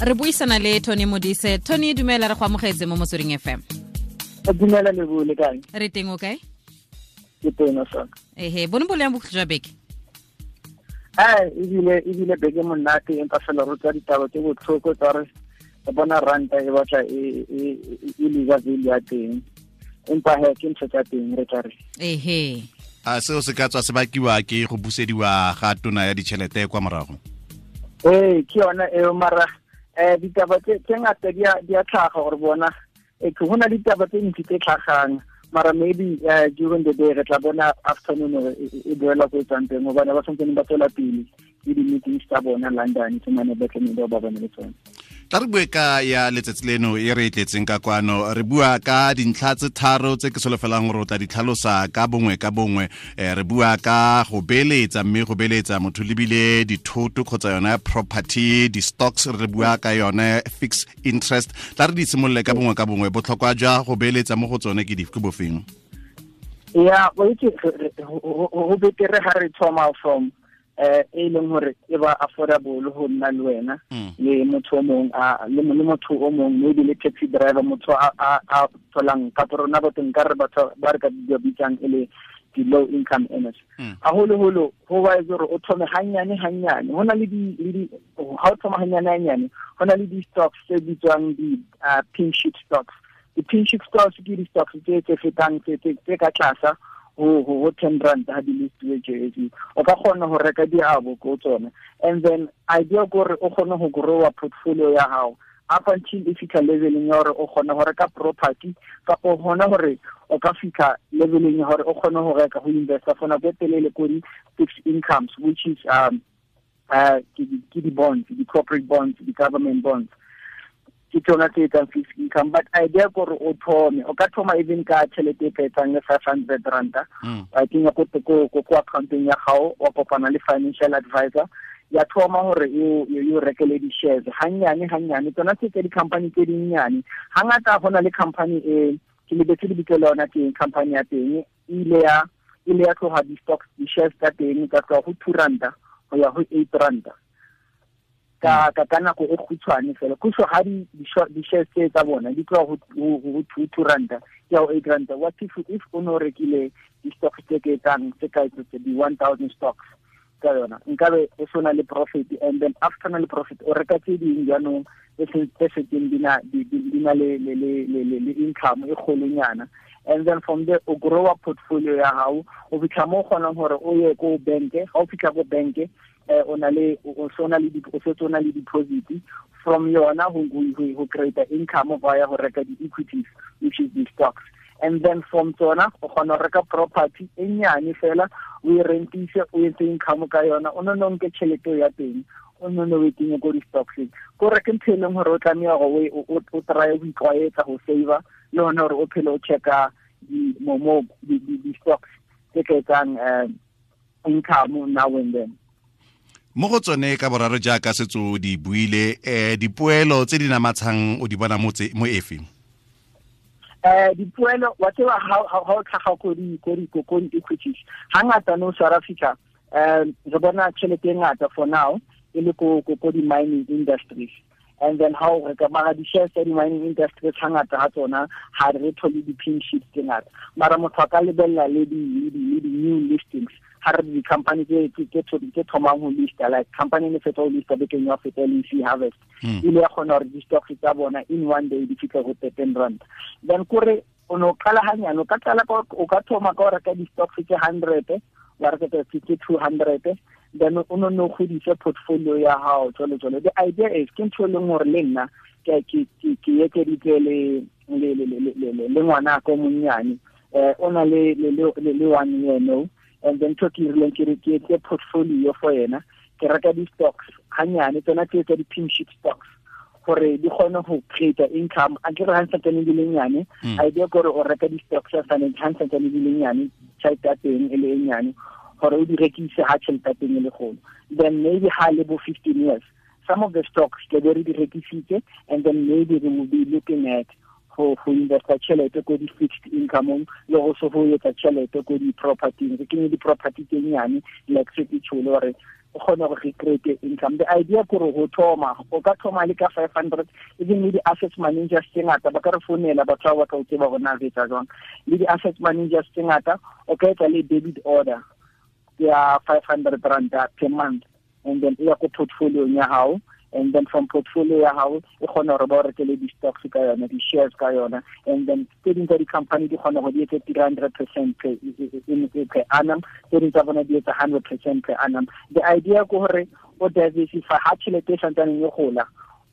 Re buisana le Tony Modise. Tony, dumela, re go amogetse mo Motsweding FM. Dumela le le kae? Re teng, o kae? Ke teng sa. Ehe, bone bo leng bokhutlo jwa beke? Ai, ebile beke monate, empa fela re tswa ditaba tse botlhoko tsa re bona ranta e batla e leba value ya teng, empa he ke ntho tsa teng, re tla re. Ehe. A seo se ka tswa se bakiwa ke go busediwa ga tona ya ditšhelete kwa morago? Ee, ke yona eo, mara ditaba tse ngata di a tlhaga gore bona ke go na ditaba tse ntsi tse tlhagang, mara maybe during the day re tla bona afternoon e boela ko e tswang teng, gobane ba santsane ba tswela pele le di-meetings tsa bona London tse mane ba tlamehile ba bone le tsone. Tla re bue ka ya letsatsi leno e re e tletseng ka kwano. Re bua ka dintlha tse tharo tse ke solofelang gore o tla di tlhalosa ka bongwe ka bongwe. Re bua ka go beeletsa, mme go beeletsa motho lebile dithoto kgotsa yone property, di-stocks, re bua ka yone fixed interest. Tla re di simolole ka bongwe ka bongwe. Botlhokwa jwa go beeletsa mo go tsone ke dife, ke bofeng? Ya, o itse go betere ga re thoma from e leng gore e ba affordable go nna le wena le motho o mong, le motho o mong, maybe le taxi driver, motho a tholang kapo rona batho nka re batho ba re ka bitsang e le di-low income earners. Haholoholo ho ba etse gore o thome hanyane hanyane. Ho na le di ha o thoma hanyane hanyane, ho na le di-stocks tse bitswang di-pink sheet stocks. Di-pink sheet stocks ke di-stocks tse fetang tse ka tlasa ho 10 rand ha di listiwe JSE. O ka kgona ho reka diabo ko tsona, and then idea ke gore o kgone ho growa portfolio ya hao up until e fitlha leveleng ya hore o kgona ho reka property, kapo hona hore o ka fitlha leveleng ya hore o kgone ho reka, ho investa for nako e telele ko di-fixed incomes, which is ke di-bonds, di-corporate bonds, di-government bonds, ke tsona tse etsang fixed income. But idea ke gore o thome, o ka thoma even ka tšhelete e ka etsang le 500 ranta wa kenya ko accountong ya gago, wa kopana le financial advisor, ya thoma hore e o rekele di-shares hanyane hanyane, tsona tse tse di-company tse dinnyane. Hangata go na le company e ke lebetse lebitso le yona teng, company ya teng e ile ya tloga di-stocks, di-shares tsa teng tsa tloga go 2 ranta go ya go 8 ranta ka nako e khutshwane fela. Kusho ha di di-shares tse tsa bona di tloga go 2 ranta ke ya go 8 ranta, what if o ne o rekile di-stocks tse ke etsang tse ka tse di 1000 stocks ka yona, nkabe o sona le profit? And then after na le profit, o reka tse ding jaanong tse setseng di na le income e kgolonyana, and then from there o growa portfolio ya gago o fitlha mo o kgonang gore o ye ko banke. Ga o fitlha ko banke, o na le o so na le o setse o na le deposit from yona go create income via go reka di-equities, which is the stocks, and then from tsona o kgona go reka property e nnyane fela, o e rentise, o etse income ka yona. O nne o nke tšhelete ya teng, o nne o e kenye ko di-stockseng. Ko re ke ntho e leng gore o tlameya gore o try go itlwaetsa go saver, le gone gore o phele o checka di-stocks tse ka etsang income now and then. Mo go tsone ka boraro, jaaka setso di buile, dipoelo tse di namatshang o di bona mo efe? Dipoelo, wa tseba, ha o tlhaga ko di equities, hangata no South Africa re bona tšhelete e ngata for now e le ko di-mining industries. And then how re ka mara di-shares tsa di-mining industries, hangata ha tsona ha re thole di-pink sheets tse ngata, mara motho a ka lebelela le di-new listings, ha re di-company tse thomang ho lista, like company ne fetsa ho lista bekeng ya feta, le C Harvest, ile ya kgona gore di-stocks tsa bona in one day di fitlhe go 13 rand. Then kore o ne o qala hanyane, o ka qala, o ka thoma ka o reka di-stocks tse 100, wa reka tse 200, then o no no godise portfolio ya hao jalo jalo. The idea is ke ntho e leng gore le nna ke ekeditse le ngwana ko monnyane, o na le 1 year no, and then ntho ke rileng ke re ke etse portfolio for yena, ke reka di-stocks hanyane, tsona tse tsa di-pink sheet stocks, gore di kgone go create income. A ke re ha santsane di le nyane, idea ke gore o reka di-stocks ha santsane di le nyane, tšhelete ya teng e le e nyane, gore o di rekise ha tšhelete ya teng e le golo. Then maybe ha le bo 15 years, some of the stocks ke be re di rekisitse, and then maybe we will be looking at go investa tšhelete ko di-fixed income, le go se go etsa tšhelete ko di-propertyng, re kenye di-property tse nyane, like se ke tšhole gore o kgone gore re create income. The idea ke gore go thoma, o ka thoma le ka 500, even le di-asset managers tse ngata ba ka re founela, batho ba batla ho tseba hore na re etsa jwang. Le di-asset managers tse ngata o ka etsa le debit order ya 500 rand per month, and then e ya ko portfolio ya hao, and then from portfolio ya hao e kgona hore ba o rekele di-stocks ka yona, di-shares ka yona, and then tse ding tsa di-company di kgona go di etse 300% per annum, tse ding tsa bona di etsa 100% per annum. The idea ke hore o diversify ha tjhelete e santsaneng e gola,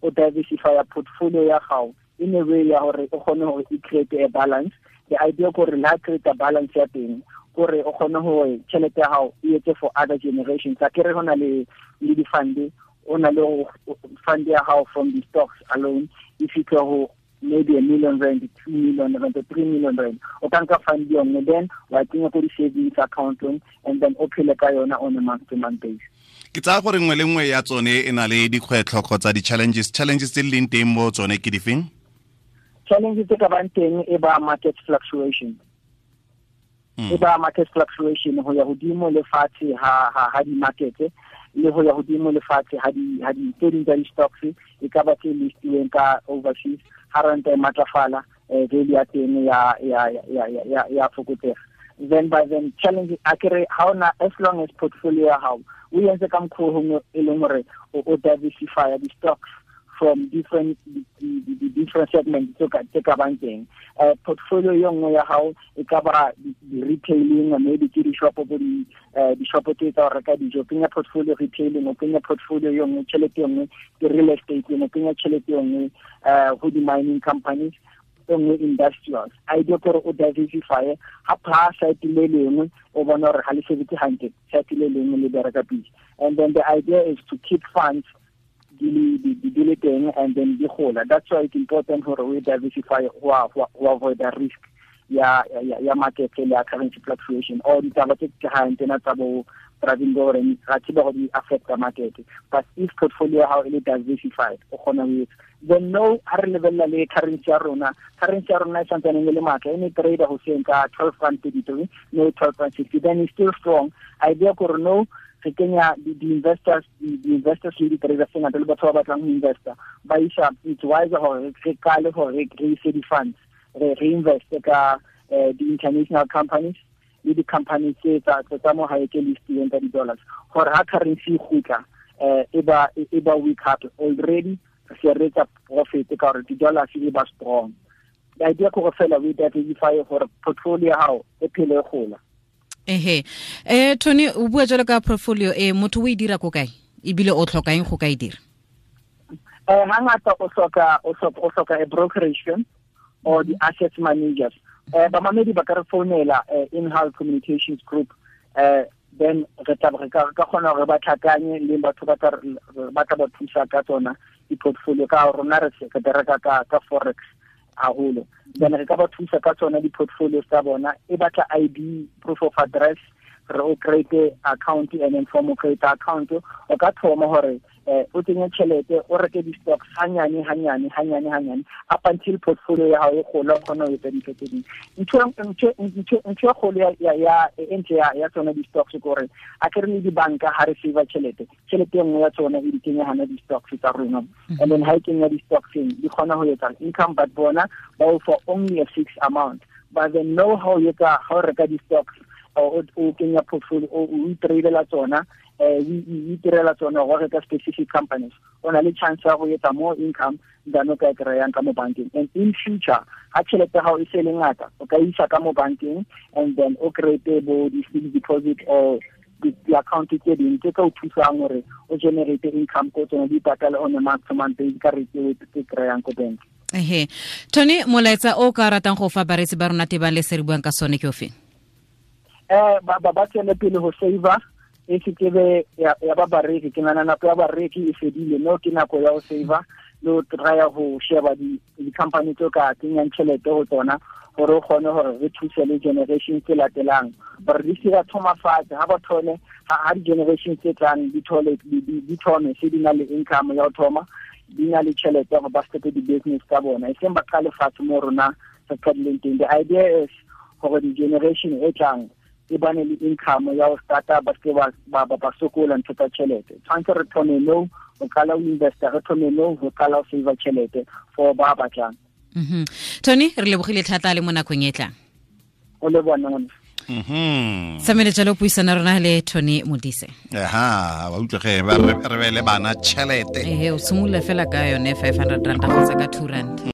o diversify portfolio ya gago in a way ya hore o kgone hore e create a balance. The idea ke hore la create a balance ya teng, gore o kgone hore tjhelete ya hao e etse for other generations. A kere hona le di-fund, o na le fund ya hao from the stocks alone, if you go maybe 1 million rand, 2 million rand, 3 million rand, o ka nka fund yone, then wa kenya ko di-savings account, and then o phele ka yona on a month to month basis. Ke tsaya gore nngwe le nngwe ya tsone e na le dikgwetlho kgotsa di-challenges. Challenges tse di leng teng mo tsone ke difeng? Challenges tse ka bang teng e ba market fluctuation. E ba market fluctuation ho ya hodimo le fatshe ha di-market, le ho ya hodimo le fatshe ha di tse ding tsa di-stocks e ka ba tse listilweng ka overseas, ha ranta e matlafala, value ya teng ya fokotsega. Then by then challenge a kere ha ona, as long as portfolio ya hao o entse ka mokgwa o e leng hore o diversify di-stocks from different different segments tse ka bang teng. Portfolio e nngwe ya hao e ka ba di-retailing, maybe ke di-shop bo di-shop tse tsa ho reka dijo, kenya portfolio retailing, o kenya portfolio e nngwe tjhelete e nngwe ke real estate, o kenya tjhelete e nngwe ho di-mining companies, e nngwe industrials. Idea ke hore o diversify, ha pha site le lengwe o bona hore ha le sebetse hantle, site le lengwe le bereka pele. And then the idea is to keep funds di le teng and then di gola. That's why it's important hore we diversify ho avoid the risk ya market le ya currency fluctuation or ditaba tse tlhahang tsena tsa bo Pravin Gordhan, ra tseba hore di affect the market. But if portfolio ya hao e le diversified, o kgona ho etsa. Then no, ha re lebella le currency ya rona, currency ya rona e santsaneng e le matla, e ne trader hoseng ka 12.33, no 12.60, then it's still strong. Idea kore no, re kenya di-investors, di-investors le di-traders tse ngata le batho ba batlang ho investa, ba isa, it's wiser hore re qale hore re ise di-funds, re reinveste ka di-international companies le di-companies tse tsa mo hae tse listilweng ka di-dollars, hore ha currency e kgutla, e ba weak hape already, re se re etsa profit ka hore di-dollars e ba strong. The idea ke hore fela we diversify hore portfolio ya hao e phele e gola. Ehe. Tony, o bua jalo ka portfolio e motho o e dira ko kae? Ebile o tlhoka eng go ka e dira? Hangata o hloka a brokerage firm or the asset managers. Bamamedi ba ka re founela in-house communications group, then re tla re ka kgona hore ba tlhakanye le batho ba tla ba thusa ka tsona di-portfolio, ka rona re se re bereka ka forex haholo. Then re ka ba thusa ka tsona di-portfolios tsa bona, e batla ID, proof of address, re o create account, and then from o create account o ka thoma hore o tsenye tjhelete, o reke di-stocks hanyane hanyane hanyane hanyane up until portfolio ya hao e gola, o kgona ho etsa dintho tse ding. Ntho e kgolo ya e ntle ya tsona di-stocks ke hore a ke re le dibanka ha re save tjhelete, tjhelete e nngwe ya tsona e di kenya hana di-stocks tsa rona, and then ha e kenya di-stocks di kgona ho etsa income, but bona ba o for only a fixed amount. But then know how you ka ha o reka di-stocks o kenya portfolio, o itradela tsona, o itirela tsona go reka specific companies, o na le chance ya go etsa more income than o ka e kry-ang ka mo bankeng. And in future ha tjhelete ya hao e se le ngata, o ka isa ka mo bankeng and then o create bo di-fixed deposit or di-account tse ding tse ka o thusang hore o generate income ko tsona, di patale on a month to month basis ka rate e kry-ang ko bank. Ehe. Tony, molaetsa o ka ratang go fa bareetsi ba rona tebang le se re buang ka sone ke ofe? Ba tswele pele ho save-a, e se ke be ya ba bareki. Ke nahana nako ya bareki e fedile, no ke nako ya ho save-a le ho try-a ho sheba di-company tse ka kenyang tjhelete ho tsona, hore o kgone hore re thuse le generation tse latelang, hore di se ka thoma fatshe. Ha ba thole ha di-generation tse tlang di thole di thome se di na le income ya ho thoma, di na le tjhelete hore ba starte di-business tsa bona, e seng ba qale fatshe mo rona re qadileng teng. The idea is hore di-generation e tlang E bane le income ya go starta, ba seke ba sokola ntho tsa tšhelete. Tshwanetse re thome no go qala o investa, re thome no go qala o save tšhelete for ba batlang. Tony, re lebogile thata le mo nakong e tlang. O le bona ngwana. Samele jalo puisana rona le Tony Modise. Aha, wa utlwa ge ba re beele bana tšhelete. Ehe, o simolola fela ka yone R500 kgotsa ka R2.